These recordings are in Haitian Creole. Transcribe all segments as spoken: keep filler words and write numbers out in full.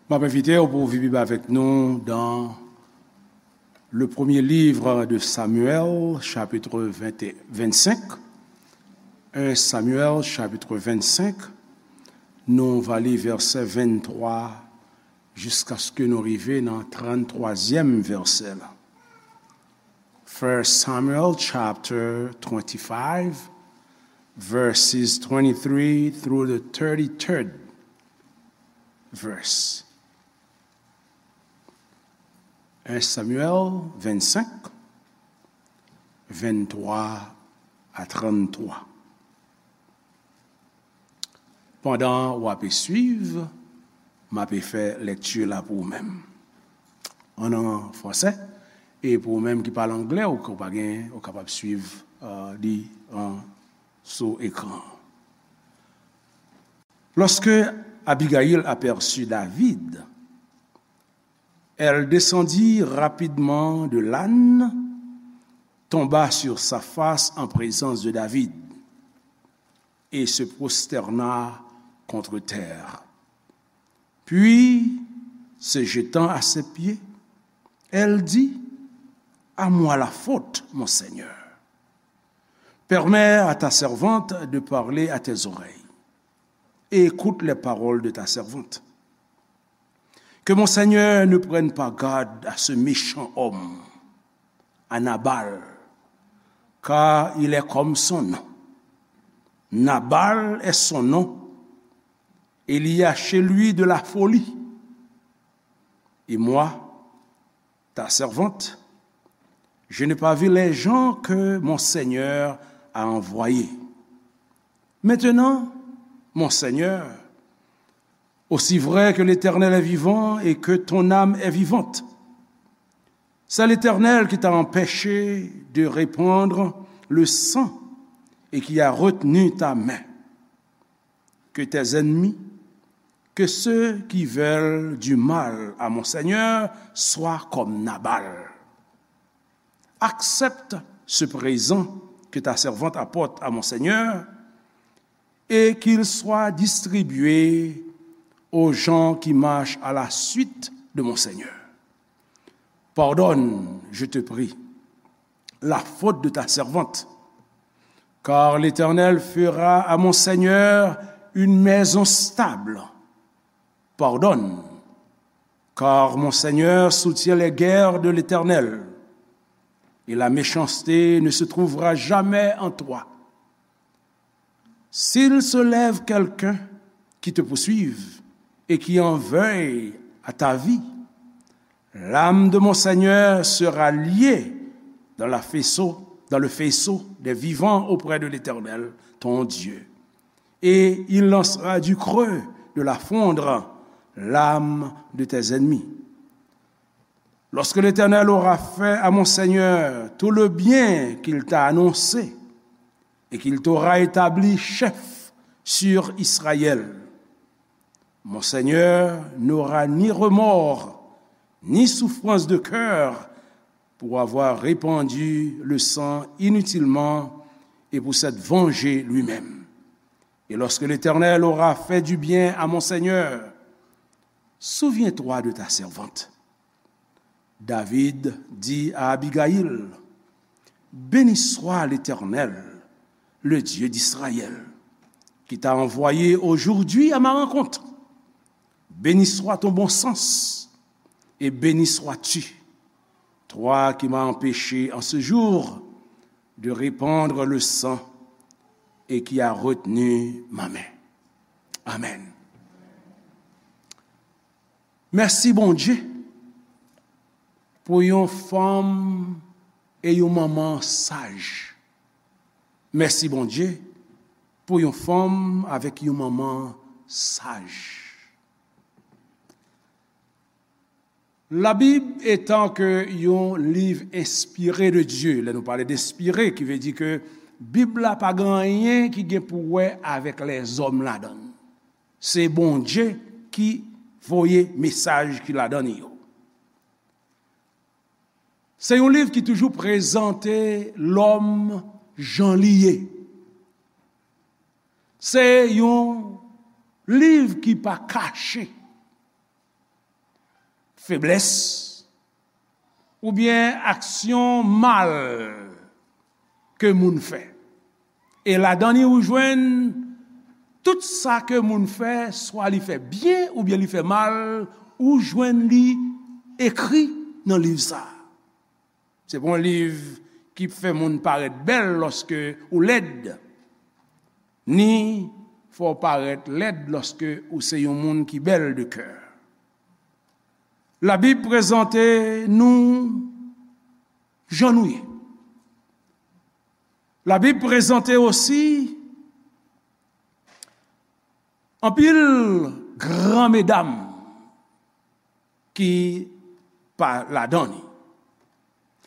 M ap envite w pou w vin avèk nou dans le premier livre de Samuel, chapitre vingt, vingt-cinq. Un Samuel, chapitre vingt-cinq. Nou va li vèsè venntwa jiskaske nou rive nan tranntwazyèm vèsè la. First Samuel chapter twenty-five, verses twenty-three through the thirty-third verse. Un Samuel vingt-cinq, vinntwa a tranntwa. Pandan w ape swiv, m ape fè lèkti la pou ou menm. An, an fransè, e pou ou menm ki pale anglè, ou, ou pa gen, ou kapab swiv, euh, li an, sou ekran. Lorsque Abigaïl aperçut David, elle descendit rapidement de l'âne, tomba sur sa face en présence de David et se prosterna contre terre. Puis, se jetant à ses pieds, elle dit : « À moi la faute, mon Seigneur. Permets à ta servante de parler à tes oreilles, et écoute les paroles de ta servante. Que mon Seigneur ne prenne pas garde à ce méchant homme, à Nabal, car il est comme son nom. Nabal est son nom, et il y a chez lui de la folie. Et moi, ta servante, je n'ai pas vu les gens que mon Seigneur a envoyés. Maintenant, mon Seigneur, aussi vrai que l'Éternel est vivant et que ton âme est vivante, c'est l'Éternel qui t'a empêché de répandre le sang et qui a retenu ta main. Que tes ennemis, que ceux qui veulent du mal à mon Seigneur soient comme Nabal. Accepte ce présent que ta servante apporte à mon Seigneur et qu'il soit distribué aux gens qui marchent à la suite de mon Seigneur. Pardonne, je te prie, la faute de ta servante, car l'Éternel fera à mon Seigneur une maison stable. Pardonne, car mon Seigneur soutient les guerres de l'Éternel, et la méchanceté ne se trouvera jamais en toi. S'il se lève quelqu'un qui te poursuive et qui en veuille à ta vie, l'âme de mon Seigneur sera liée dans la faisceau, dans le faisceau des vivants auprès de l'Éternel, ton Dieu, et il lancera du creux de la fronde l'âme de tes ennemis. Lorsque l'Éternel aura fait à mon Seigneur tout le bien qu'il t'a annoncé et qu'il t'aura établi chef sur Israël, mon Seigneur n'aura ni remords, ni souffrance de cœur pour avoir répandu le sang inutilement et pour s'être vengé lui-même. Et lorsque l'Éternel aura fait du bien à mon Seigneur, souviens-toi de ta servante. David dit à Abigaïl : « Béni soit l'Éternel, le Dieu d'Israël, qui t'a envoyé aujourd'hui à ma rencontre. Béni soit ton bon sens, et béni sois-tu, toi qui m'as empêché en ce jour de répandre le sang et qui as retenu ma main. » Amèn. Mèsi, Bondye, pou yon fanm e yon manman saj. Mèsi, Bondye, pou yon fanm avèk yon manman saj. Labib etan ke yon liv enspire de Dye, lè nou pale de enspire, ki vle di ke Bib la pa gen anyen ki gen pou wè avèk lèzòm ladan l. Se Bondye ki voye mesaj ki ladan l yo. Se yon liv ki toujou prezante lòm jan li ye. Se yon liv ki pa kache. feblès, oubyen aksyon mal ke moun fè. E ladan li ou jwenn tout sa ke moun fè, swa li fè byen oubyen li fè mal, ou jwenn li ekri nan liv sa a. Se pa yon liv ki fè moun parèt bèl lòske ou lèd, ni fè w parèt lèd lòske ou se yon moun ki bèl de kè. Labib prezante nou jan nou ye. Labib prezante osi anpil gran medam ki pa ladan li.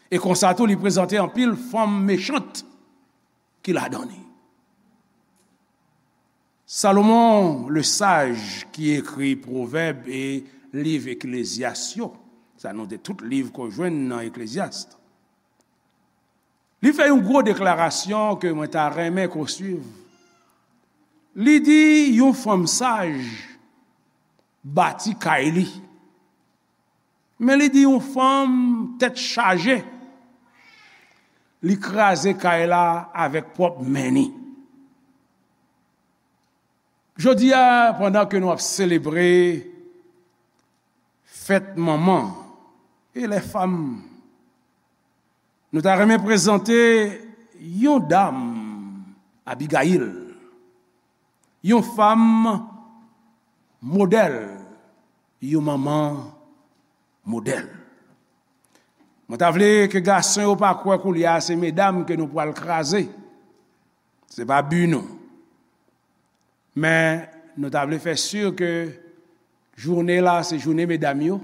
E konsa tou, li prezante anpil fanm mechant ki ladan li. Salomon, le saj ki ekri Pwovèb e liv Eklezyas yo, sa nou te tout liv ke w jwenn nan Eklezyas, li fè yon gwo deklarasyon ke mwen ta renmen ke w swiv. Li di yon fanm saj bati kay li. Men li di yon fanm tèt chaje, li kraze kay la avèk pwòp men ni. Jodi a, pandan ke nou ap selebre fèt manman e lè fanm, nou ta renmen prezante yon dam, Abigayil, yon fanm modèl, yon manman modèl. Mwen ta vle ke gason yo pa kwè koulye a se medam ke nou pral kraze. Se pa bi nou. Men nou ta vle fè si ke jounen la se jounen medam yo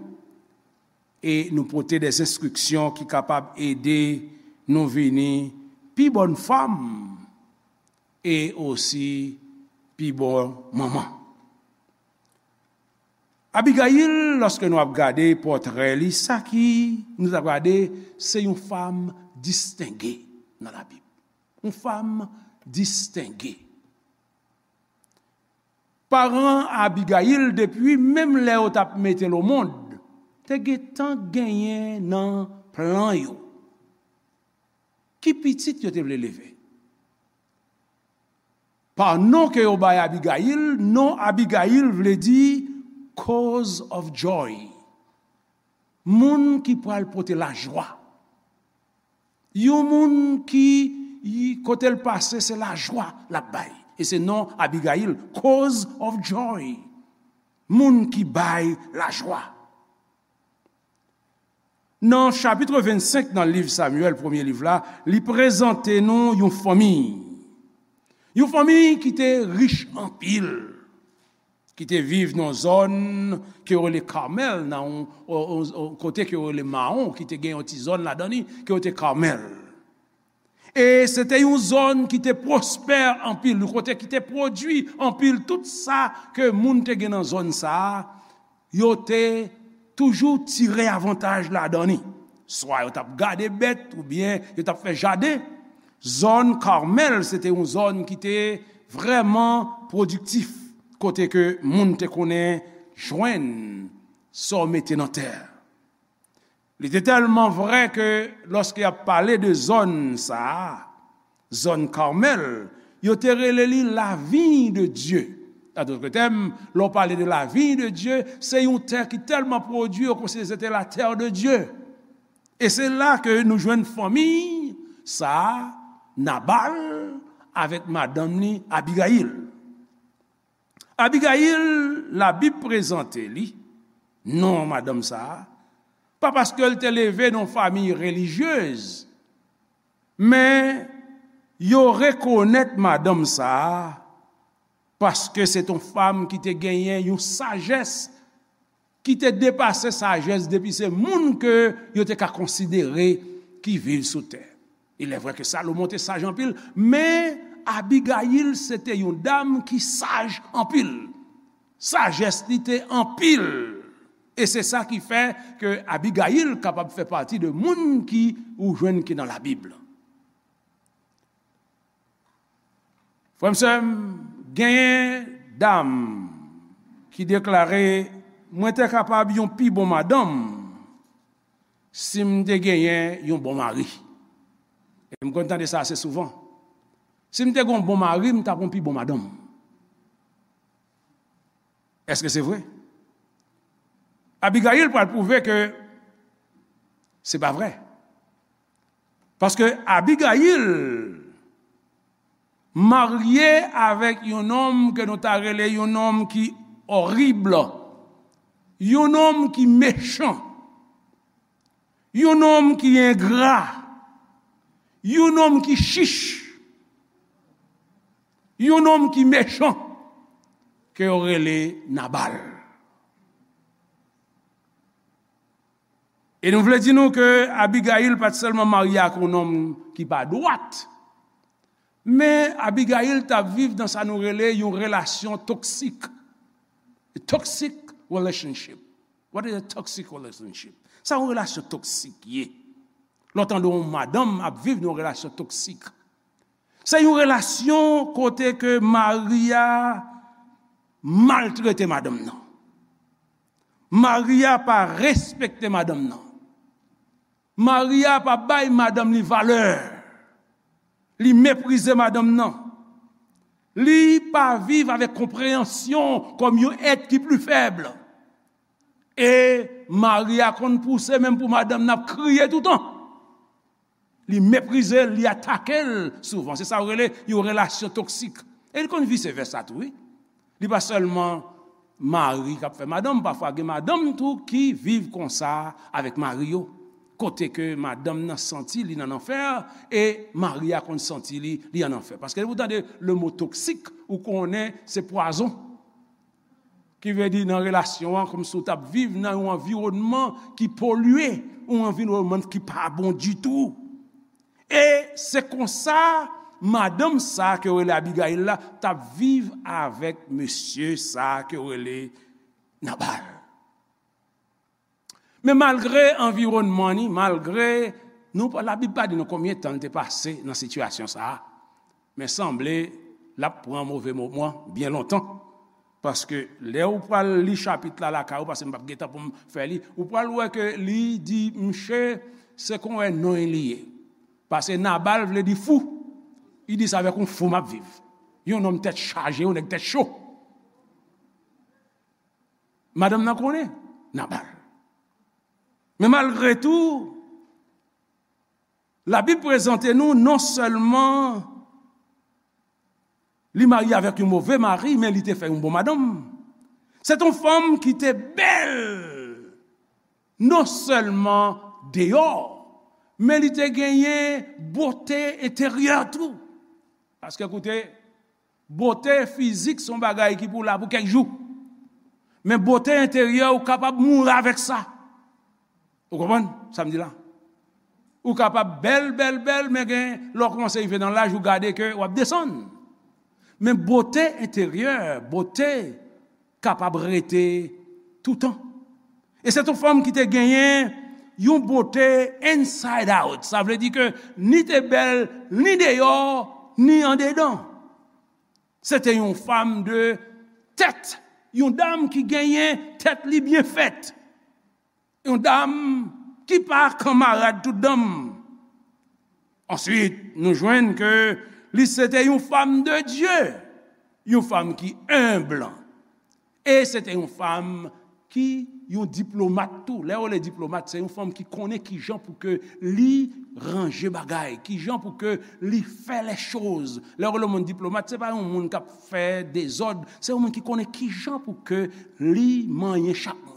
e nou pote de enstriksyon ki kapab ede nou vini pi bòn fanm e osi pi bon manman. Abigayil, lòske nou ap gade pòtrè li, sa ki nou ap gade, se yon fanm distenge nan Labib. Yon fanm distenge. Paran Abigayil, depi menm lè yo t ap mete l omond, te gentan genyen nan plan yo ki pitit yo te vle leve. Pa non ke yo bay Abigayil, non Abigayil vle di cause of joy. Moun ki pral pote lajwa. Yon moun ki, kote l pase, se lajwa l ap bay. E se non Abigayil, cause of joy. Moun ki bay lajwa. Nan chapit vennsenk nan liv Samyèl, premye liv la, li prezante nou yon fanmi. Yon fanmi ki te rich anpil, ki te viv nan zòn ke yo rele Kamèl, nan yon, yon, yon, yon kote ke yo rele Mawon, ki te gen yon ti zòn ladan li, ke yo te Kamèl. E se te yon zòn ki te pwospè anpil, yon kote ki te pwodui anpil. Tout sa ke moun te gen nan zòn sa a, yo te toujou tire avantaj ladan li. Swa yo t ap gade bèt oubyen yo t ap fè jaden. Zòn Kamèl, se te yon zòn ki te vrèman pwodiktif, kote ke moun te konnen jwenn sa w mete nan tè. Li te tèlman vrè ke lòske y ap pale de zòn sa a, zòn Kamèl, yo te rele li la vigne de Dieu. An dòt tèm, lè w pale de la vigne de Dieu, se yon tè ki tèlman pwodui, yo konsidere se te la terre de Dieu. E se la ke nou jwenn fanmi sa a, Nabal avèk madanm li, Abigayil. Abigayil, Labib prezante li, non madanm sa a, pa paske l te leve nan yon fanmi relijyez, men yo rekonèt madanm sa a paske se t on fanm ki te genyen yon sajès ki te depase sajès depi se moun ke yo te ka konsidere ki viv sou tè. Il est vrai ke Salomon te saj anpil, men Abigayil se te yon dam ki saj anpil. Sajès li te anpil. E se sa ki fè ke Abigayil kapab fè pati de moun ki ou jwenn ki nan Labib. Frè m, sè m, genyen dam ki deklare Mwen te kapab yon pi bon madanm si m te genyen yon bon mari. E m konn tande sa ase souvan. Si m te gen yon bon mari, m t ap yon pi bon madanm. Èske se vre? Abigayil pral pwouve ke se pa vre. Paske Abigayil marye avèk yon nonm ke nou ta rele yon nonm ki orib, yon nonm ki mechan, yon nonm ki engra, yon nonm ki chich, yon nonm ki mechan, ke yo rele Nabal. E nou vle di nou ke Abigayil pa t sèlman marye ak yon nonm ki pa dwat, men Abigayil t ap viv nan sa nou rele yon relasyon toksik. A toxic relationship. What is a toxic relationship? Sa yon relasyon toksik ye. Lè w tande yon madanm ap viv nan yon relasyon toksik. Se yon relasyon kote ke mari a maltrete madanm nan. Mari a pa respekte madanm nan. Mari a pa bay madanm li valè. Li meprize madanm nan. Li pa viv avèk konpreyansyon kòm yon èt ki pli fèb. E mari a konn pouse menm pou madanm nan ap kriye toutan. Li meprize l, li atake l souvan. Se sa yo rele yon relasyon toksik. E li konn vise vèsa tou, wi. Li pa sèlman mari k ap fè madanm, pafwa gen madanm tou ki viv konsa avèk mari yo. Kote ke madanm nan santi li nan lanfè, e mari a konn santi li, li an lanfè. Paske lè ou tande le mo toksik, ou konnen se pwazon. Ki vle di nan relasyon an, kòmsi w t ap viv nan yon anviwònman ki polye, yon anviwònman ki pa bon ditou. E se konsa, madanm sa ke yo rele Abigayil la, t ap viv avèk mesye sa ke yo rele Nabal. Men malgre anviwònman ni, malgre nou, Labib pa di nou konbyen tan l te pase nan sitiyasyon sa a, men sanble l ap pran move moman byen lontan. Paske lè ou pral li chapit la lakay ou, paske m p ap gen tan pou m fè li, ou pral wè ke li di, mche, se kon wè non li ye. Paske Nabal vle di fou. Li di, se avèk yon fou m ap viv. Yon nonm tèt chaje, yon nèg tèt cho. Madanm nan konnen Nabal. Men malgre tou, Labib prezante nou non sèlman li marye avèk yon move mari, men li te fè yon bon madanm. Se t yon fanm ki te bèl, non sèlman deyò, men li te genyen bote enteryè tou. Paske koute, bote fizik se yon bagay ki pou la pou kèk jou. Men bote enteryè, ou kapab mouri avèk sa. Ou konprann sa m di la? Ou kapab bèl, bèl, bèl, men gen lè w kòmanse rive nan laj, ou gade ke w ap desann. Men bote enteryè, bote kapab rete toutan. E se t yon fanm ki te genyen yon bote inside out. Sa vle di ke ni te bèl, ni deyò, ni andedan. Se te yon fanm de tèt, yon dam ki genyen tèt li byen fèt. Yon dam ki pa kanmarad tout dam. Answit, nou jwenn ke li se te yon fanm de Dye, yon fanm ki enb. E se te yon fanm ki yon diplomat tou. Lè yo rele diplomat, se yon fanm ki konnen kijan pou ke li ranje bagay, kijan pou ke li fè lèchoz. Lè yo rele yon moun diplomat, se pa yon moun k ap fè dezòd, se yon moun ki konnen kijan pou ke li manyen chak moun.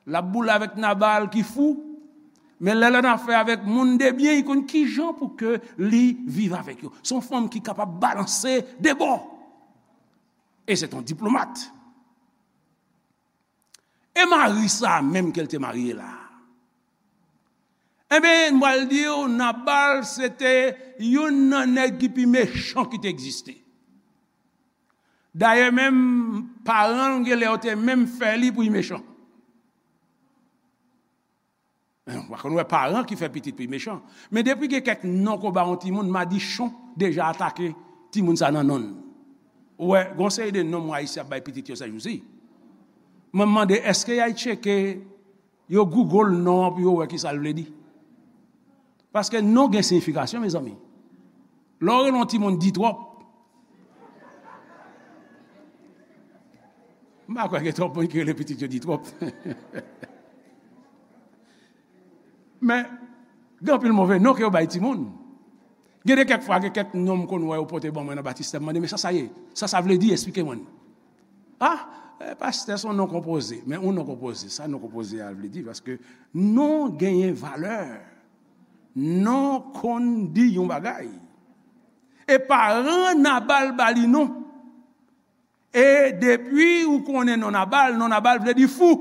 L ap boule avèk Nabal ki fou, men lè l annafè avèk moun de byen, li konn kijan pou ke li viv avèk yo. Se yon fanm ki kapab balanse de bò. E se t yon diplomat. E mari sa a menm ke l te marye la? Enben, m pral di w, Nabal se te youn nan nèg ki pi mechan ki te egziste. Dayè, menm paran l, gen lè yo te menm fè li pou l mechan. Ou pa konn wè paran ki fè pitit pou l mechan. Men depi gen kèk non ke w ba yon timoun, madichon deja atake timoun sa nan non l. Ou wè, gen yon seri de non mwen Ayisyen ap bay pitit yo sèjousi. Mwen mande, èske y al tcheke, yo Google non an pou yo wè ki sa l vle di? Paske non gen siyifikasyon, mezanmi. Lè w rele yon timoun Ditwòp, m pa kwè gen twòp moun ki rele pitit yo Ditwòp. Men, gen anpil move non ke yo bay timoun. Gen de kèk fwa, gen kèk non m konn wè yo pote ban mwen nan batistè, m mande, "Men sa sa ye? Sa sa vle di? Eksplike mwen." "Ah, eh, pastè, se yon non konpoze." Men yon non konpoze, sa non konpoze a vle di? Paske non genyen valè. Non konn di yon bagay. E paran Nabal ba li non. E depi ou konnen non Nabal, non Nabal vle di fou,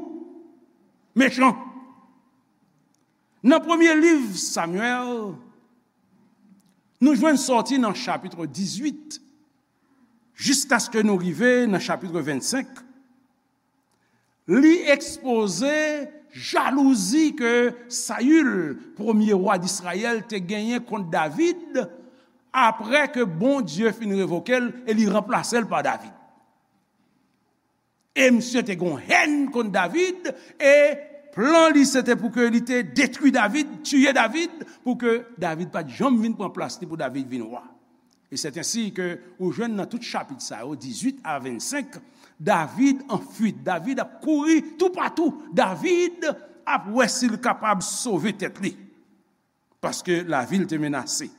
mechan. Nan premye liv Samyèl, nou jwenn sòti nan chapit dizuit, jiskaske nou rive nan chapit vennsenk. Li ekspoze jalouzi ke Sayil, premye wa Disrayèl, te genyen kont David, apre ke Bondye fin revoke l e li ranplase l pa David. E misye te gen yon hèn kont David, e plan li se te pou ke li te detwi David, tiye David, pou ke David pa t janm vin pran plas li, pou David vin wa. E c'est ainsi que ou jwenn nan tout chapit sa yo, dizuit a vennsenk, David an fuit. David ap kouri toupatou. David ap wè si l kapab sove tèt li. Paske lavi l te menase.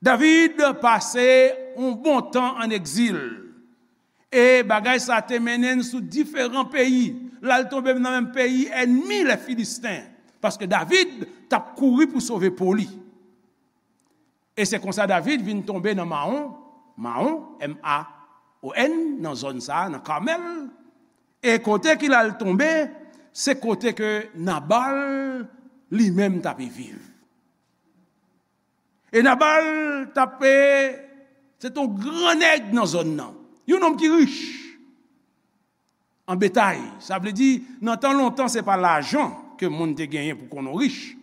David pase yon bon tan an egzil. E bagay sa te mennen l sou diferan peyi. L al tonbe nan menm peyi ènmi lè Filisten. Paske David t ap kouri pou sove po li. E se konsa David vin tonbe nan Mawon, Mawon, M A O N, nan zòn sa a, nan Kamèl. E kote ki l al tonbe, se kote ke Nabal li menm t ape viv. E Nabal t ape, se te yon gran nèg nan zòn nan. Yon nonm ki rich. An betay. Sa vle di, nan tan lontan, se pa lajan ke moun te genyen pou konn ou rich.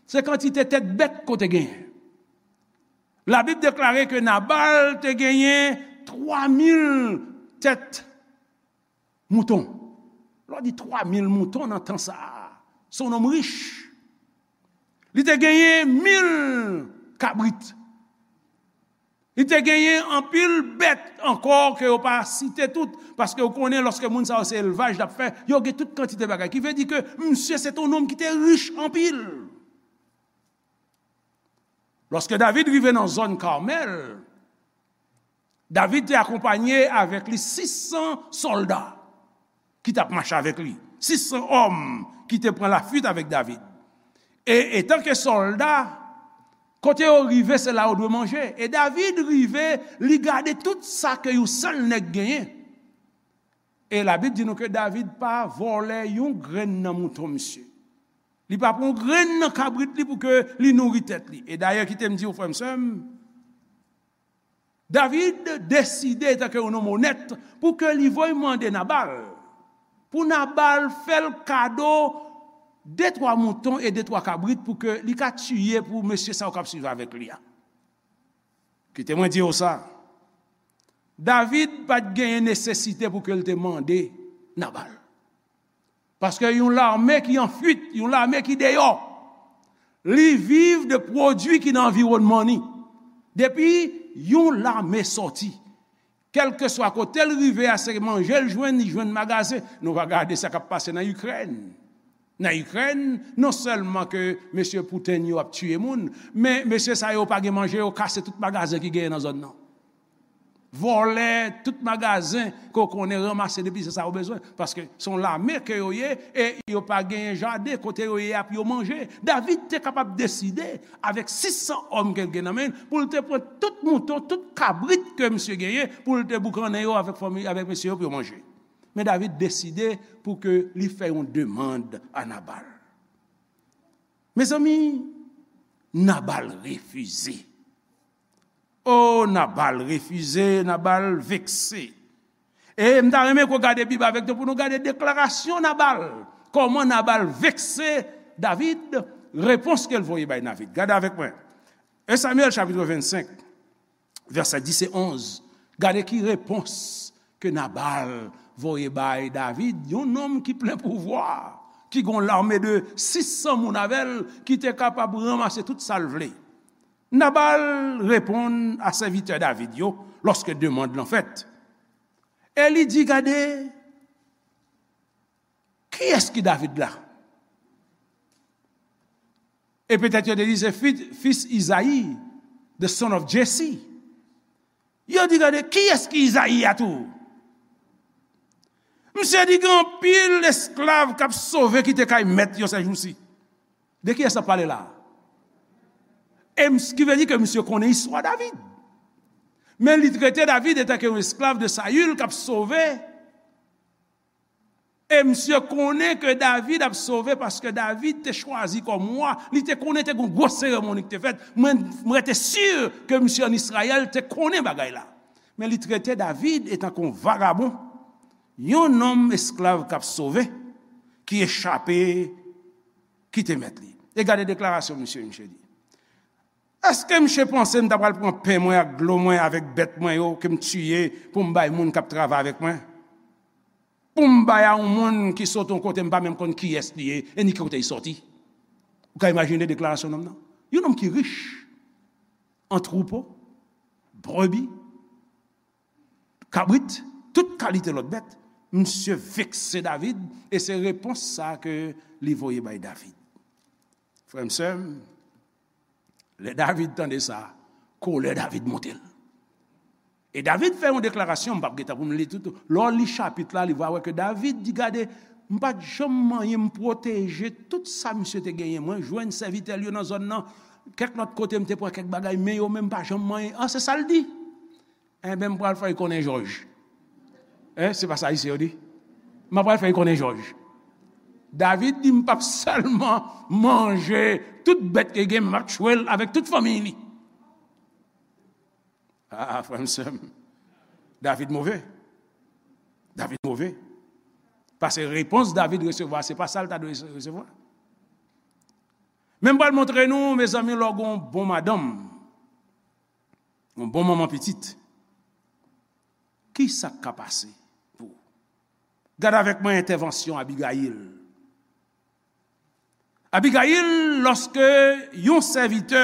Se kantite tèt bèt ke w te genyen. Labib deklare ke Nabal te genyen twa mil tèt mouton. Lè w di twa mil mouton nan tan sa a, se yon nonm rich. Li te genyen mil kabrit. Li te genyen anpil bèt ankò ke yo pa site tout, paske w konnen lòske moun sa yo se elvaj l ap fè, yo gen tout kantite bagay. Ki vle di ke misye se te yon nonm ki te rich anpil. Lòske David rive nan zòn Kamèl, David te akonpanye avèk li sis san sòlda ki t ap mache avèk li. Sis san òm ki te pran lafuit avèk David. E etanke sòlda, kote yo rive, se la yo dwe manje. E David rive, li gade tout sa ke yon sèl nèg genyen. E Labib di nou ke David pa vòlè yon grenn nan mouton misye. Li pa pran yon grenn nan kabrit li pou ke li nouri tèt li. E dayè, kite m di w, frè m, sè m, David deside, etanke yon nonm onèt, pou ke li voye mande Nabal, pou Nabal fè l kado de twa mouton e de twa kabrit pou ke li ka tiye pou mesye sa yo k ap swiv avèk li a. Kite mwen di w sa, David pa t genyen nesesite pou ke l te mande Nabal. Paske yon lame ki an fuit, yon lame ki deyò, li viv de pwodui ki nan anviwònman li. Depi yon lame sòti, kèlkeswa kote l rive a, se manje l jwenn, li jwenn magazen. Nou va gade sa k ap pase nan Ikrèn. Nan Ikrèn, non sèlman ke mesye Putin yo ap tiye moun, men mesye sa yo pa gen manje, yo kase tout magazen ki genyen nan zòn nan. Vòlè tout magazen ke w konnen, ranmase depi se sa yo bezwen. Paske se yon lame ke yo ye, e yo pa genyen jaden kote yo ye a pou yo manje. David te kapab deside, avèk sis san òm ke l gen nan men l, pou l te pran tout mouton, tout kabrit ke misye genyen, pou l te boukannen yo avèk fanmi, avèk mesye yo pou yo manje. Men David deside pou ke li fè yon demann a Nabal. Mezanmi, Nabal refize. O, Nabal refize, Nabal vekse. E m ta renmen ke w gade Bib avèk nou pou nou gade deklarasyon Nabal. Kòman Nabal vekse David, repons ke l voye bay David. Gade avèk mwen. En Samyèl chapit vennsenk, vèsè dis e onz. Gade ki repons ke Nabal voye bay David, yon nonm ki plen pouvwa, ki gen yon lame de sis san moun avè l, ki te kapab ranmase tout sa l vle. Nabal reponn a sèvitè David yo lòske demann lan fèt. E li di, gade, kiyès ki David la? E petèt yo te di se fi, fis Izayi, the son of Jesse. Yo di, gade, kiyès ki Izayi a tou? Misye di gen anpil esklav k ap sove kite kay mèt yo sèjousi. De kiyès ap pale la? E ms- ki vle di ke misye konnen istwa David. Men li trete David etanke yon esklav de Sayil k ap sove. E misye konnen ke David ap sove paske David te chwazi kòm wa. Li te konnen te gen yon gwo seremoni ki te fèt. Mwen, mwen rete si ke misye ann Izrayèl te konnen bagay la. Men li trete David etanke yon vagabon, yon nonm esklav k ap sove, ki echape kite mèt li. E gade deklarasyon misye, misye di. Èske misye panse m ta pral pran pen mwen ak dlo mwen avèk bèt mwen yo ke m tiye pou m bay moun k ap travay avèk mwen? Pou m bay a yon moun ki sot yon kote m pa menm konn kiyès li ye e ni ki kote li sòti? Ou ka imajine deklarasyon nonm nan? Yon nonm ki rich an twoupo, brebi, kabrit, tout kalite lòt bèt. Misye vekse David, e se repons sa ke li voye bay David. Frè m, sè m, lè David tande sa, kolè David monte l. E David fè yon deklarasyon, m p ap gentan pou m li tout. Lè w li chapit la, li va wè ke David di, gade, m pa t janm manyen, m pwoteje tout sa misye te genyen. Mwen jwenn sèvitè l yo nan zòn nan, kèk lòt kote m te pran kèk bagay, men yo menm pa janm manyen. An, se sa l di. Enben, m pral fè y konnen jòj. Hein, se pa sa Ayisyen yo di? M ap pral fè y konnen jòj. David di, m p ap sèlman manje tout bèt ke gen, men m ap tchwe l avèk tout fanmiy li. Ah, frè m, sè m. David move. David move. Paske repons David resevwa, se pa sa l ta dwe resevwa. Men m pral montre nou, mezanmi, lè w gen yon bon madanm, yon bon manman pitit, ki sa k ka pase pou ou? Gade avèk mwen entèvansyon Abigayil. Abigayil, lòske yon sèvitè,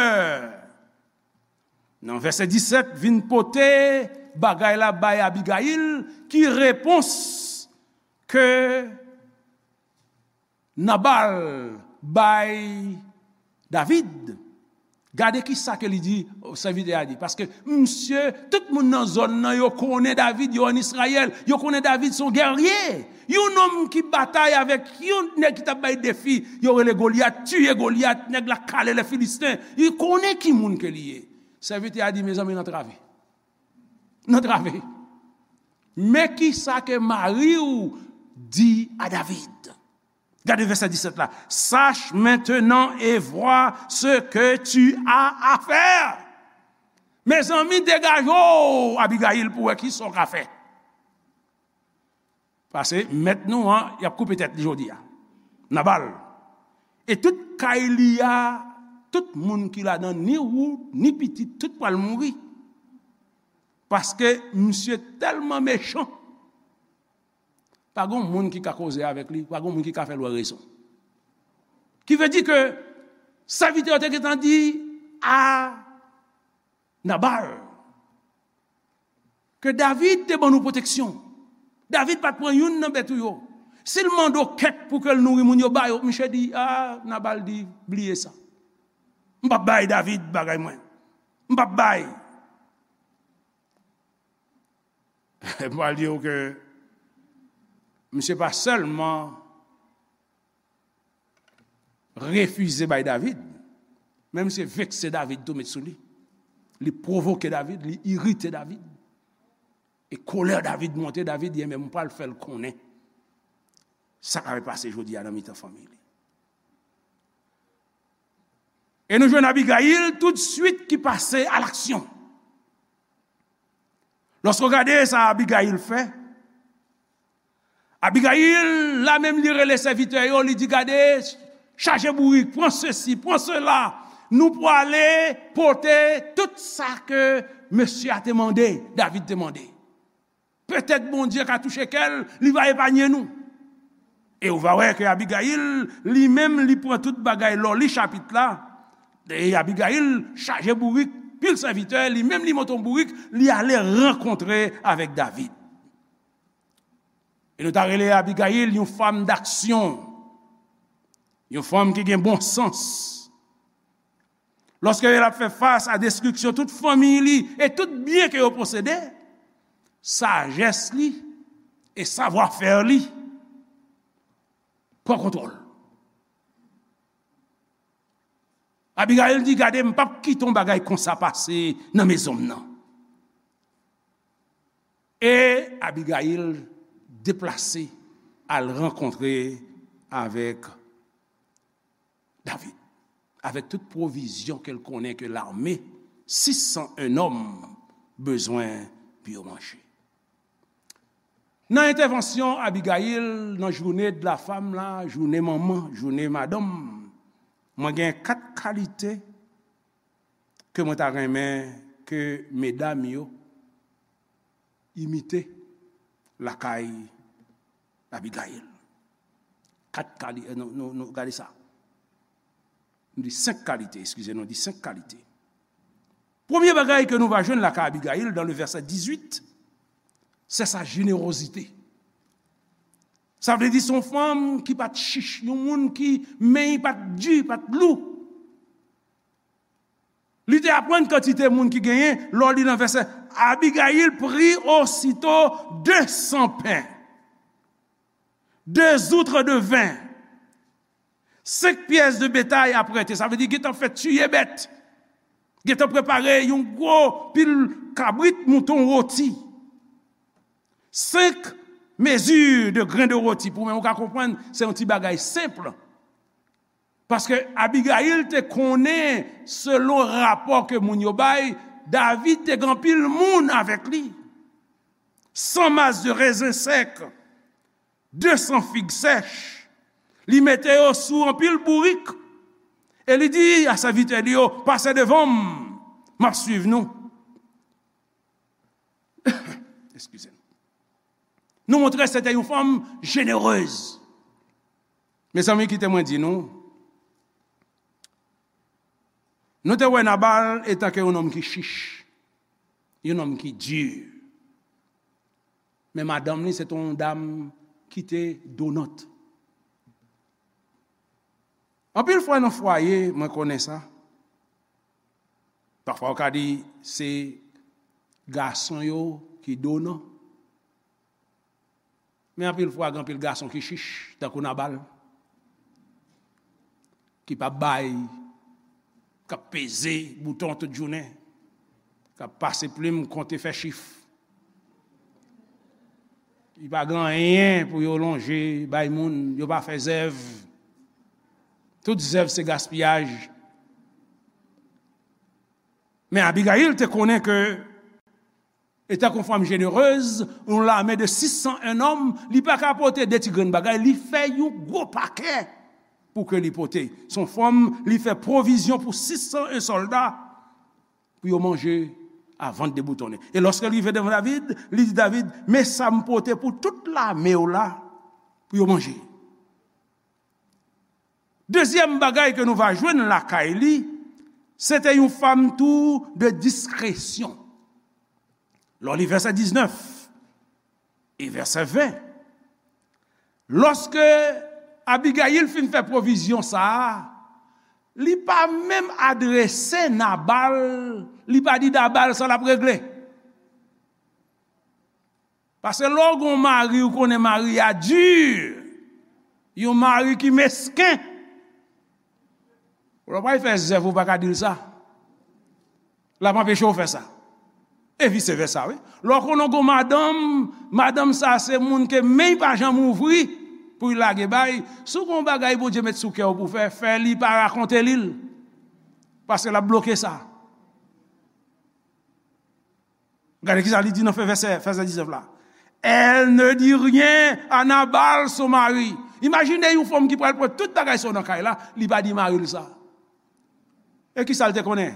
nan vèsè disèt, vin pote bagay la bay Abigayil, ki repons ke Nabal bay David? Gade ki sa ke li di, sèvitè a di. Paske misye, tout moun nan zòn nan, yo konnen David, yo ann Izrayèl, yo konnen David se yon gèrye. Yon nonm ki batay avèk yon nèg ki t ap bay defi, yo rele Golyat, tiye Golyat, nèg la kale lè Filisten. Li konnen ki moun ke li ye. Sèvitè a di, mezanmi, n antrave. N antrave. Men ki sa ke mari w di a David? Gade vèsè disèt la. Sache maintenant et vois ce que tu as à faire. Mezanmi, degaje w, Abigayil, pou wè ki sa w ka fè. Paske mèt nou an, y ap koupe tèt li jodi a. Nabal. E tout kay li a, tout moun ki ladan, ni ou, ni pitit, tout pral mouri. Paske misye tèlman mechan. Pa gen moun ki ka koze avèk li, pa gen moun ki ka fè l wè rezon. Ki vle di ke sèvitè yo te gentan di a Nabal ke David te ban nou pwoteksyon. David pa t pran youn nan bèt ou yo. Si l mande w kèk pou ke l nouri moun yo, ba yo. Misye di, a, Nabal di, bliye sa. M p ap bay David bagay mwen. M p ap bay. M pral di w ke misye pa sèlman refize bay David, men misye vekse David tou met sou li. Li pwovoke David, li irite David. E kolè David monte, David di, enben, m pral fè l konnen sa k ap pase jodi a nan mitan fanmi li. E nou jwenn Abigayil toutswit ki pase a laksyon. Lòske w gade sa Abigayil fè, Abigayil, la menm, li rele sèvitè yo, li di, gade, chaje bourik, pran sesi, pran sela, nou pwale pote tout sa ke mesye a te mande, David te mande. Petèt Bondye ka touche kè l, li va epanye nou. E ou va wè ke Abigayil, li menm, li pran tout bagay lè w li chapit la. E Abigayil chaje bourik, pil sèvitè, li menm li monte yon bourik, li ale rankontre avèk David. E nou ta rele Abigayil yon fanm daksyon, yon fanm ki gen bon sans. Lòske l ap fè fas a destriksyon tout fanmi li e tout byen ke yo posede, sajès li e savwafè li pran kontwòl. Abigayil di, "Gade, m p ap kite yon bagay konsa pase nan mezon m nan." E Abigayil deplase al rankontre avèk David, avèk tout pwovizyon ke l konnen ke lame sis san en nonm bezwen pou yo manje. Nan entèvansyon Abigayil nan journée de la femme la, jounen manman, jounen madanm, mwen gen kat kalite ke mwen ta renmen ke medam yo imite lakay Abigayil. Kat kalite, nou, nou, nou gade sa. Nou di senk kalite, eskize, nou di senk kalite. Premye bagay ke nou va jwenn lakay Abigayil, dans le verset dix-huit, c'est sa générosité. Sa vle di se yon fanm ki pa t chich, yon moun ki men li pa t di, pa t lou. Li te aprann kantite moun ki genyen, lè w li nan vèsè, Abigayil prit aussitôt deux cents pains, deux outres de vin, cinq pièces de bétail apprêtées. Sa vle di gentan fè tiye bèt. Gentan prepare yon gwo pil kabrit, mouton, woti. Cinq mesures de grains de rôti. Pou mwen, ou ka konprann, se yon ti bagay senp. Paske Abigayil te konnen, selon rapò ke moun yo bay, David te gen anpil moun avèk li. Cent masses de raisin sec, deux cents figues sèches. Li mete yo sou anpil bourik. E li di a sèvitè li yo, "Pase devan m, m ap swiv nou." Eskize m. Nou montre se te yon fanm jenerez. Mezanmi, kite mwen di nou, nou te wè Nabal etan ke yon nonm ki chich, yon nonm ki di. Men madanm li, se te yon dam ki te donant. Anpil fwa nan fwaye, mwen konnen sa. Pafwa, w ka di se gason yo ki donan. Men anpil fwa, gen anpil gason ki chich, tankou Nabal, ki p ap bay, k ap peze bouton tout jounen, k ap pase plim, konte, fè chif. Li pa gen anyen pou yo lonje bay moun, yo pa fè zèv. Tout zèv se gaspiyaj. Men Abigayil te konnen ke, etan ke yon fanm jenerez, yon lame de sis san en nonm, li pa ka pote de ti grenn bagay, li fè yon gwo pakè pou ke li pote. Se yon fanm, li fè pwovizyon pou sis san en sòlda pou yo manje avan de boutonnen. E lòske l rive devan David, li di David, "Men sa m pote pou tout lame w la pou yo manje." Dezyèm bagay ke nou va jwenn lakay li, se te yon fanm tou de diskresyon. Lè w li vèsè diznèf e vèsè ven, lòske Abigayil fin fè pwovizyon sa a, li pa menm adrese Nabal, li pa di Nabal sa l ap regle. Paske lè w gen yon mari, ou konnen mari a di, yon mari ki mesken, lè w pral fè zèv, ou pa ka di l sa. L ap anpeche w fè sa. E vise vèsa, wi. Lè w konnen w gen yon madanm, madanm sa se moun ke men l pa janm ouvri pou l lage bay. Si w gen yon bagay Bondye met sou kè w pou w fè, fè li, pa rakonte li l. Paske l ap bloke sa. Gade kisa li di nan fen vèsè, vèsè diznèf la. Elle ne dit rien à Nabal, son mari. Imajine yon fanm ki pral pran tout bagay sa yo nan kay la, li pa di mari l sa. E kisa l te konnen?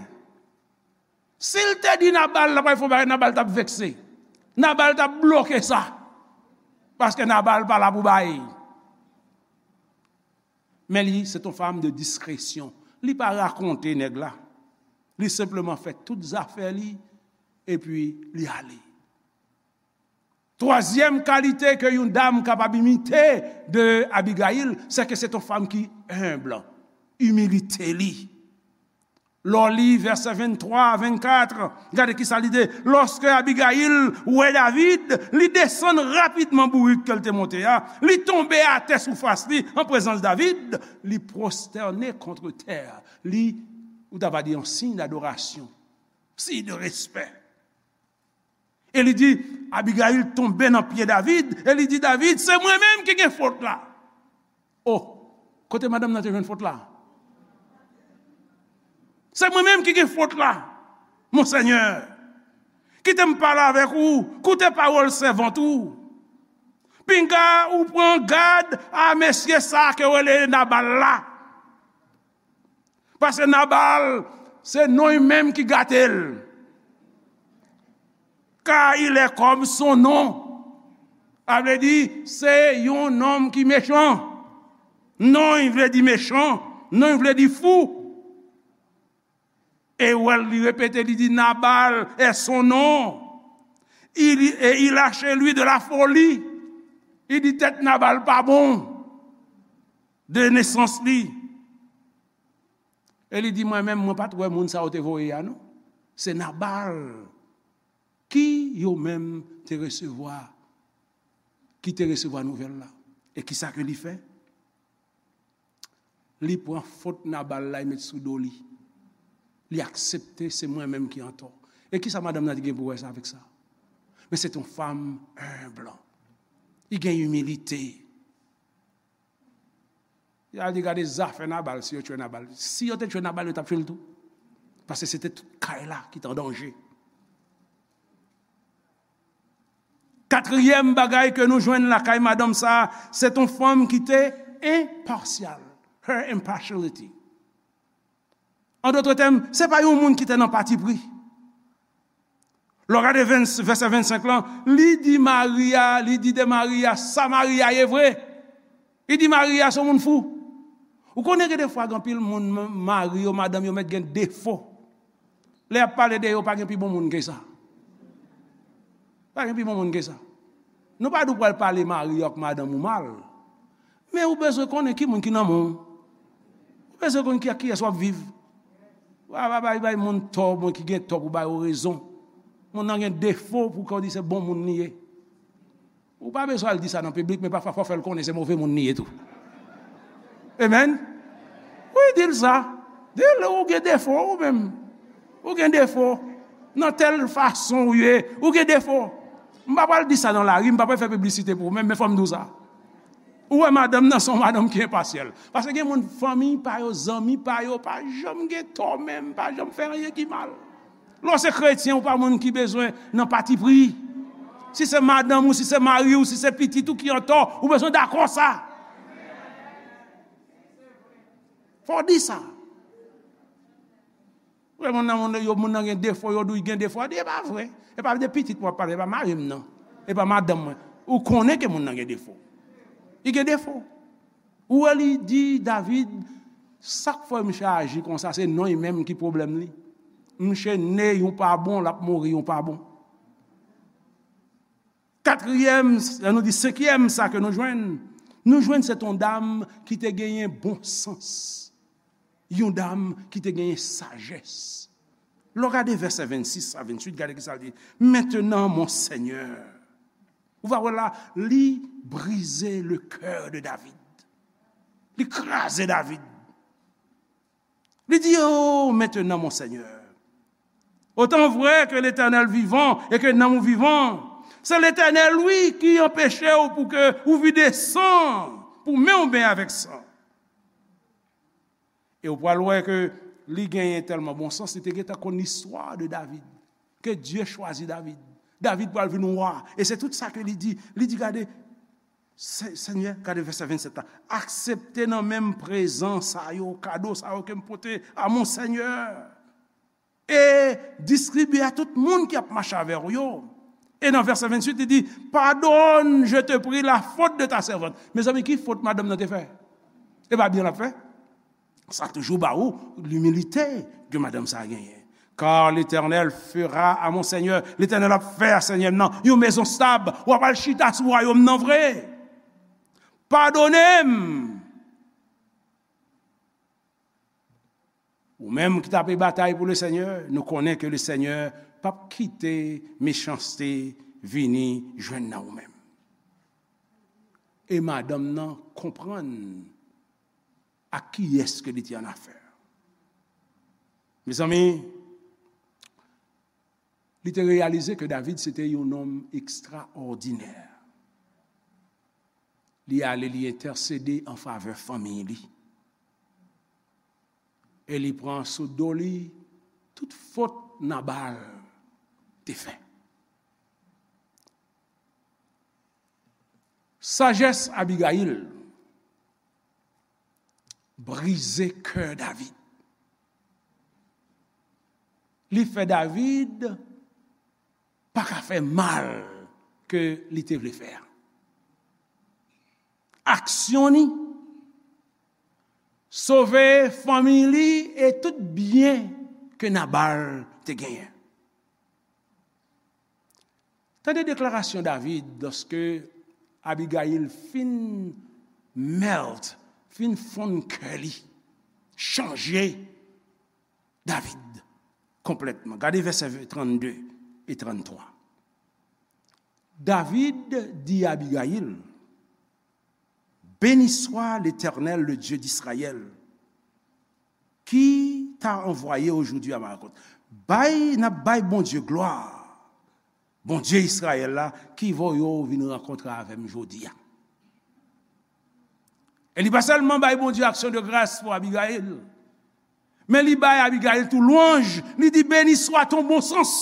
Si l te di Nabal, l ap fè yon bagay, Nabal t ap vekse. Nabal t ap bloke sa. Paske Nabal pa la pou bay. Men li, se yon fanm de diskresyon. Li pa rakonte nèg la. Li senpleman fè tout zafè li, epi li ale. Twazyèm kalite ke yon dam kapab imite de Abigayil, se ke se yon fanm ki enb, imilite li. Lè w li vèsè venntwa a vennkat, gade ki sa li di. Lòske Abigayil wè David, li desann rapidman bourik ke l te monte a, li tonbe atè sou fas li an prezans David, li pwostène kont tè. Li, ou ta va di, yon siy dadorasyon, siy de respè. E li di, Abigayil tonbe nan pye David, e li di, David, se mwen menm ki gen fot la. Oh, kote madanm nan te jwenn fot la? Se mwen menm ki gen fot la, Monsenyè. Kite m pale avèk ou, koute pawòl sèvant ou. Pinga ou pran gad a mesye sa ke yo rele Nabal la. Paske Nabal, se non li menm ki gate l. Car il est comme son nom. Sa vle di, se yon nonm ki mechan. Non li vle di mechan, non li vle di fou. E ou wè l, li repete, li di, Nabal est son nom. Il, et il a chez lui de la folie. Li di tèt Nabal pa bon de nesans li. E li di, mwen menm, mwen pa t wè moun sa yo te voye a, non. Se Nabal ki yo menm te resevwa, ki te resevwa nouvèl la. E ki sa ke li fè? Li pran fot Nabal la, li met sou do li. Li aksepte se mwen menm ki antò. E ki sa madanm nan te gen pou wè sa avèk sa? Men se yon fanm enb. Li gen imilite. Li al di, gade zafè Nabal, si yo tchwe Nabal. Si yo te tchwe Nabal, yo t ap tchwe l tou. Paske se te tout kay la ki te an danje. Katriyèm bagay ke nou jwenn lakay madanm sa, se yon fanm ki te enpasyal. Her impartiality. An dòt tèm, se pa yon moun ki te nan patipri. Lè w gade vèsè vennsenk lan, li di mari a, li di de mari a, sa mari a ye vre. Li di mari a se yon moun fou. Ou konnen gen defwa gen anpil moun, mari yo, madanm yo mèt gen defo. Lè y ap pale de yo, pa gen pi bon moun ke sa. Pa gen pi bon moun ke sa. Nou pa di w pral pale mari w ak madanm ou mal. Men ou bezwen konnen ki moun ki nan men w. Ou bezwen konn ki ak kiyès w ap viv. Ou pa bay, bay moun tò, moun ki gen tò pou ba yo rezon. Moun nan gen defo pou kòm di se bon moun li ye. Ou pa bezwen al di sa nan piblik, men pafwa fò w fè l konnen se move moun li ye tou. Amen. Wi, di l sa. Di l ou gen defo ou menm. Ou gen defo. Nan tèl fason ou ye, ou gen defo. M pa pral di sa nan lari, m pa pral fè piblisite pou ou menm, men fò m di w sa. Ou wè madanm nan se yon madanm ki enpasyal. Paske gen moun, fanmi pa yo, zanmi pa yo, pa janm gen tò menm, pa janm fè anyen ki mal. Lè w se kretyen, ou pa moun ki bezwen nan patipri. Si se madanm ou, si se mari w, si se pitit ou ki antò, ou bezwen dakò sa. Fò w di sa. Ou wè moun nan, moun yo, moun nan gen defo, yo di w gen defo. A di, e pa vre. E pa de pitit mwen ap pale, e pa mari m nan. E pa madanm mwen. Ou konnen ke moun nan gen defo. Li gen defo. Ou wè li di David, sa k fè misye aji konsa, se non li menm ki pwoblèm li. Misye ne yon pa bon, l ap mouri yon pa bon. Katriyèm, nou di senkyèm, sa ke nou jwenn, nou jwenn se yon dam ki te genyen bon sans. Yon dam ki te genyen sajès. Lè w gade vèsè vennsis a venntuit, gade ki sa l di. Maintenant, mon Seigneur. Ou va wè la, li brize le cœur de David. Li kraze David. Li di, oh, maintenant, mon Seigneur, autant vrai que l'Éternel vivant et que nanm ou vivan, se Letènèl, wi, ki anpeche w pou ke ou vide san, pou men w benyen avèk san. E w pral wè ke li genyen tèlman bon sans, li te gentan konn listwa de David, ke Dye chwazi David. David pral vin wa. E se tout sa ke li di. Li di, gade, Se-, Senyè, gade vèsè vennsèt la. Aksepte nan men m prezan sa yo, kado sa yo ke m pote a mon Senyè. E distribye a tout moun ki ap mache avè w yo. E nan vèsè venntuit, li di, pardonne, je te prie, la faute de ta servante. Mezanmi, ki fot madanm nan te fè? E pa byen l ap fè? Sa toujou ba ou limilite ke madanm sa a genyen. Car l'Éternel fera à mon Seigneur, Letènèl ap fè a Senyè m nan yon mezon stab, w ap al chita sou wayòm nan vre. Padone m. Ou menm ki t ape batay pou Lesenyè, nou konnen ke Lesenyè p ap kite mechanste vini jwenn nan ou menm. E madanm nan konprann ak kiyès ke li te annafè. Mezanmi, li te reyalize ke David se te yon nonm ekstraòdinè. Li ale, li entèsede an favè fanmiy li. E li pran sou do li tout fot Nabal te fè. Sajès Abigayil brize kè David. Li fè David pa ka fè mal ke li te vle fè a. Aksyon li sove fanmi li e tout byen ke Nabal te genyen. Tande deklarasyon David lòske Abigayil fin melt, fin fonn kè li, chanje David konplètman. Gade vèsè trannde e tranntwa. David di Abigayil, béni soit l'Éternel, le Dieu d'Israël, qui t'a envoyé aujourd'hui à ma rencontre. Bay, n ap bay Bondye glwa, Bondye Izrayèl la, ki voye w vin rankontre avè m jodi a. E li pa sèlman bay Bondye aksyon de gras pou Abigayil, men li bay Abigayil tou lwanj, li di, béni soit ton bon sens.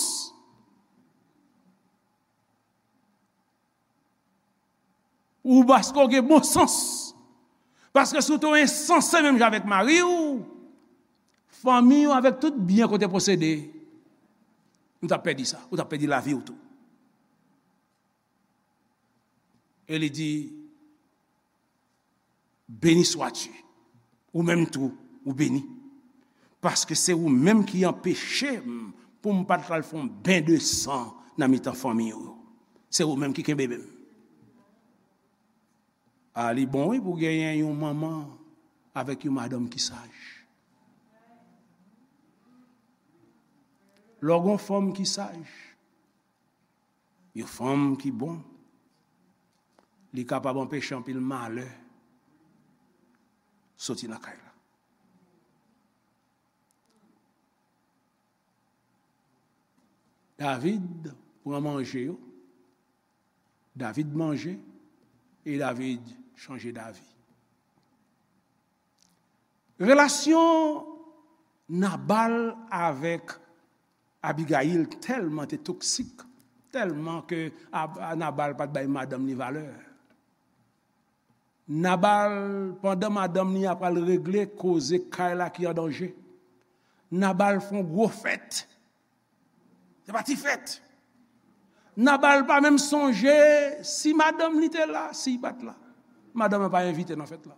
Ou paske w gen bon sans. Paske si w te ensanse menm jan avèk mari w, fanmi w avèk tout byen ke w te posede, ou t ap pèdi sa, ou t ap pèdi lavi w tou. E li di, béni sois-tu. Ou menm tou, ou beni. Paske se ou menm ki anpeche m pou m pa t al fè yon ben de san nan mitan fanmi w yo. Se ou menm ki kenbe men m. A, li bon wi pou genyen yon manman avèk yon madanm ki saj. Lè w gen yon fanm ki saj, yon fanm ki bon, li kapab anpeche anpil malè soti nan kay la. David pran manje yo, David manje, e David chanje davi. Relasyon Nabal avèk Abigayil tèlman te toksik, tèlman ke Ab-, Nabal pa t bay madanm li valè. Nabal, pandan madanm li a pral regle koze kay la ki an danje, Nabal fè yon gwo fèt. Se pa ti fèt. Nabal pa menm sonje si madanm li te la, si li pa t la. Madanm nan pa envite nan fèt la.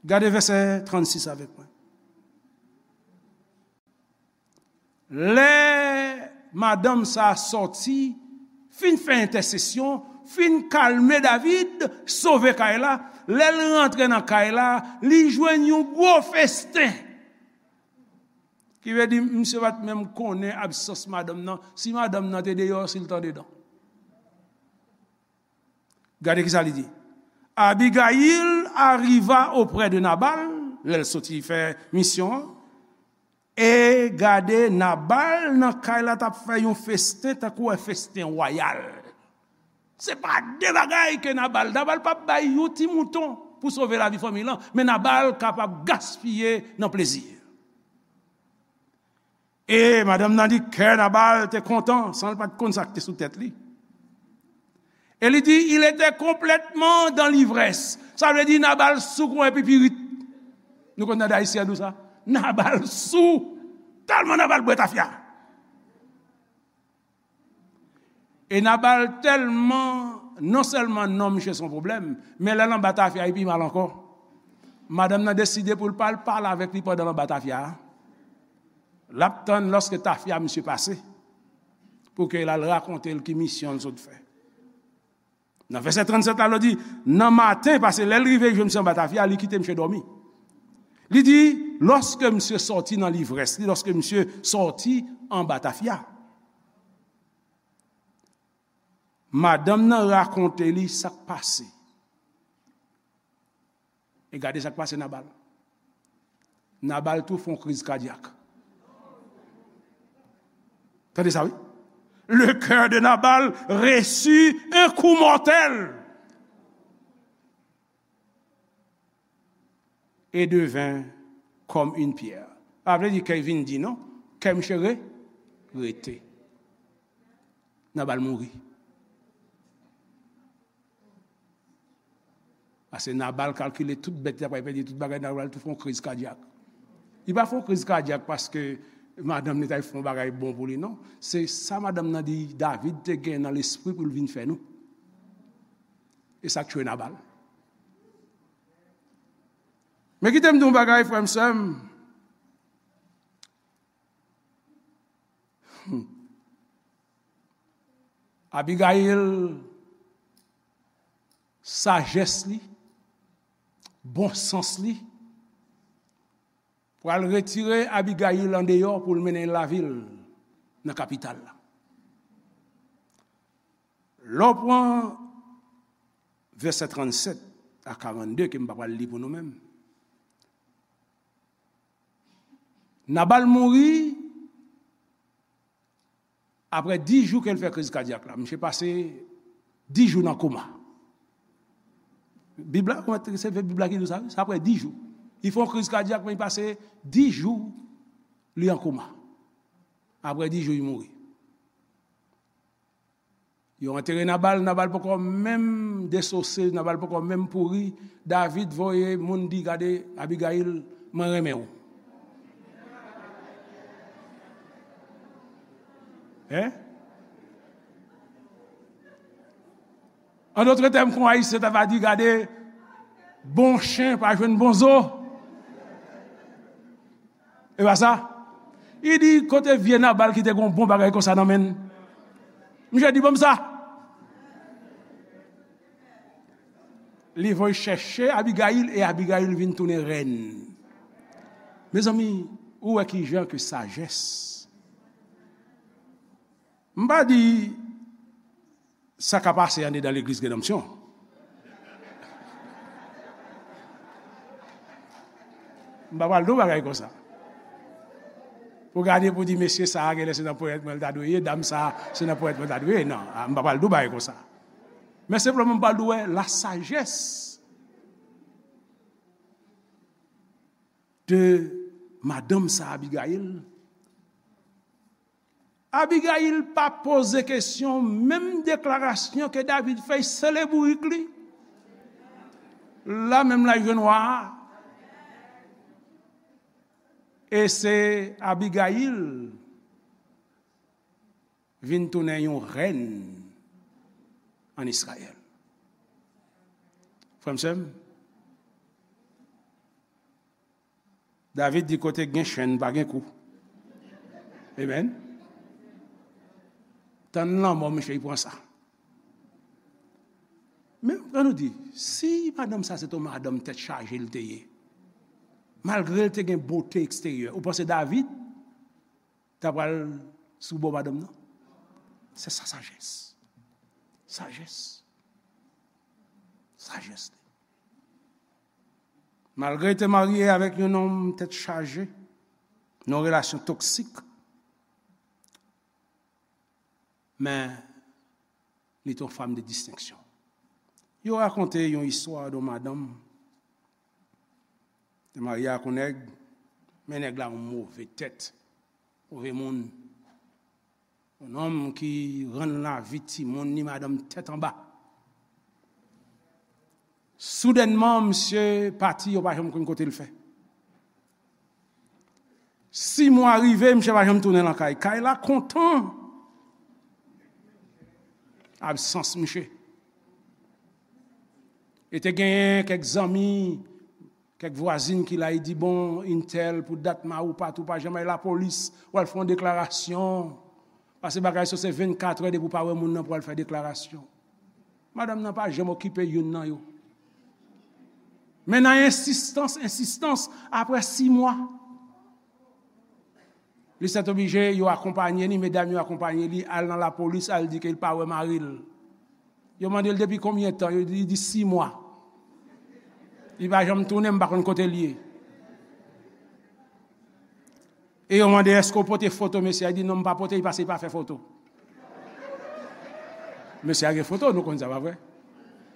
Gade vèsè trannsis avèk mwen. Lè madanm sa a sòti, fin fè entèsesyon, fin kalme David, sove kay la, lè l rantre nan kay la, li jwenn yon gwo festen. Ki vle di, misye pa t menm konnen absans madanm nan, si madanm nan te deyò, si l t andedan. Gade kisa li di. Abigail arriva auprès de Nabal, lè l soti fè misyon an. E gade, Nabal nan kay la t ap fè yon festen, tankou w wè festen wayal. Se pa de bagay ke Nabal, Nabal p ap bay yon ti mouton pou sove lavi fanmi l lan, men Nabal kapab gaspiye nan plezi. E madanm nan di, kè Nabal te kontan, san l pa t konn sa k te sou tèt li. E li di, il était complètement dans l'ivresse. Sa vle di, Nabal sou kon epi pirit. Nou konn tande Ayisyen ap di w sa. Nabal sou. Tèlman Nabal bwè tafya. E Nabal tèlman, non sèlman non misye se yon pwoblèm, men lè l anba tafya, li pi mal ankò. Madanm nan deside pou l pa al pale avèk li pandan l anba tafya a. L ap tann lòske tafya misye pase, pou ke l al rakonte l ki misyon l sot fè. Nan vèsè trannsèt la, l di, nan maten, paske lè l rive jwenn misye anba tafya, li kite misye dòmi. Li di, lòske misye sòti nan livrès li, lòske misye sòti anba tafya, madanm nan rakonte li sa k pase. E gade sa k pase Nabal. Nabal tou fè yon kriz kadyak. Tande sa, wi. Le cœur de Nabal reçut un coup mortel et devint comme une pierre. Pa vle di kè vin di non, kè misye re, rete. Nabal mouri. Paske Nabal kalkile tout bèt li ta pral pèdi, tout bagay, Nabal tou fè yon kriz kadyak. Li pa fè yon kriz kadyak paske madanm li ta fè yon bagay bon pou li, non. Se sa madanm nan di David te gen nan lespri pou l vin fè nou. E sa k tchwe Nabal. Men kite m di yon bagay, frè m, sè m. Hmm. Abigayil, sajès li, bon sans li, pral retire Abigayil andeyò pou l mennen l lavil nan kapital la. Lè w pran vèsè trannsèt a karannde, ke m pa pral li pou nou menm. Nabal mouri apre dis jou ke l fè kriz kadyak la. Misye pase dis jou nan koma. Bib la, se Bib la ki di w sa, wi. Se apre dis jou. Li fè yon kriz kadyak, men li pase dis jou, li an koma. Apre dis jou, li mouri. Yo antere Nabal, Nabal poko menm desose, Nabal poko menm pouri. David voye moun di, gade, Abigayil, mwen renmen w. Hein? An dòt tèm, kon Ayisyen ta va di, gade, bon chen pa jwenn bon zo. E pa sa? Li di, kote vye Nabal ki te gen yon bon bagay konsa nan men l? Misye di, ban m sa. Li voye chèche Abigayil, e Abigayil vin tounen rèn. Mezanmi, ou wè ki jan ke sajès. M pa di sa ka pase andedan legliz Redanmsyon. M pa pral di w bagay konsa. Pou gade pou di, mesye sa a genlè se nan ponyèt mwen l ta dwe ye, dam sa a se nan ponyèt mwen l ta dwe ye. Non, a, m pa pral di w bagay konsa. Men senpleman m pral di w, wè, la sajès de madanm sa Abigayil. Abigayil pa poze kesyon, menm deklarasyon ke David fè, sele bourik li. La menm la jwenn wa a. E se Abigayil vin tounen yon rèn an Izrayèl. Frè m, sè m, David di, kote gen chenn, pa gen kou. Amen. Tann lanmò, mesye, li pran sa. Men, ann nou di, si madanm sa se t on madanm tèt chaje l te ye, malgre l te gen bote eksteryè, ou panse David ta pral sou bò madanm nan? Se sa sajès. Sajès. Sajès li. Malgre li te marye avèk yon nonm tèt chaje, nan yon relasyon toksik, men li te yon fanm de distenksyon. Yo rakonte yon istwa de yon madanm te marye ak yon nèg, men nèg la yon move tèt, move moun. Yon nonm ki rann lavi timoun ni madanm tèt anba. Soudènman, misye pati, yo pa janm konn kote l fè. Sis mwa rive, misye pa janm tounen nan kay. Kay la kontan. Absans miche. E te genyen kèk zanmi, kèk vwazin ki la, li di, "Bon, entèl, pou dat mari w pati, ou pa janm al lapolis, w al fè yon deklarasyon. Paske bagay sa se vennkatrè depi w pa wè moun nan pou w al fè deklarasyon." Madanm nan pa janm okipe youn nan yo. Men nan ensistans, ensistans, apre sis mwa, li sètoblije, yo akonpanye li, medam yo akonpanye li, al nan lapolis, al di ke li pa wè mari l. Yo mande l depi konbyen tan, yo di, li di sis mwa. Li pa janm tounen, m pa konn kote l ye. E yo mande, "Èske w pote foto mesye a?" Li di, "Non, m pa pote, li pase li pa fè foto." Mesye a gen foto, nou konn sa, pa vre?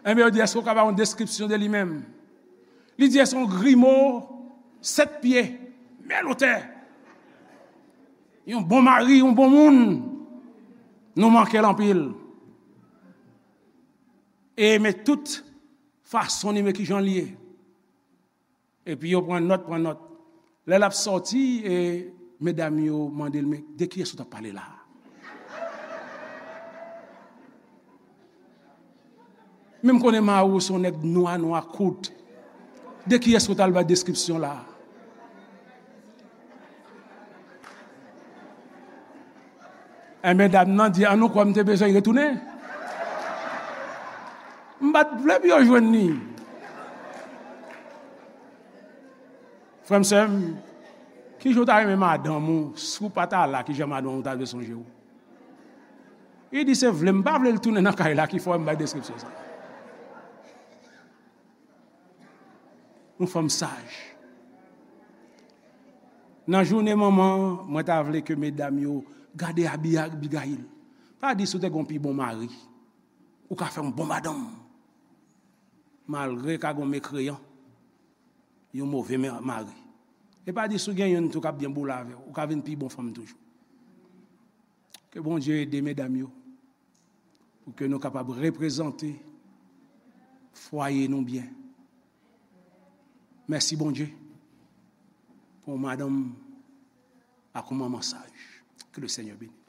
Enben, yo di, "Èske w ka ba yon deskripsyon de li menm?" Li di, "Se yon grimo, sèt pye, men lotè. Yon bon mari, yon bon moun. Nou manke l anpil." E men tout fason li, men kijan li ye. Epi yo pran nòt, pran nòt. Lè l ap sòti, e medam yo mande l, "Men de kiyès ou t ap pale la a?" Men m konnen mari w se yon nèg nwa, nwa kout. De kiyès ou t al bay deskripsyon la a? Enben, dam nan di, "An nou kwè m te bezwen retounen. M pa t vle pou yo jwenn li." Frè m, sè m, kijan w ta renmen madanm ou, si w pa ta la, kijan madanm ou ta dwe sonje w? Li di, "Se vle m pa vle l tounen nan kay la ki fè m bay deskripsyon sa." Yon fanm saj. Nan jounen manman, mwen ta vle ke medam yo gade Abi-, Abigayil. Pa di si w te gen yon pi bon mari, ou ka fè yon bon madanm. Malgre ka gen yon mekreyan, yon move me-, mari. E pa di si w gen youn tou k ap byen boule avè w, ou ka vin pi bon fanm toujou. Ke Bondye ede medam yo pou ke nou kapab reprezante fwaye nou byen. Mèsi Bondye pou yon madanm ak yon manman saj. Ke le Senyè beni.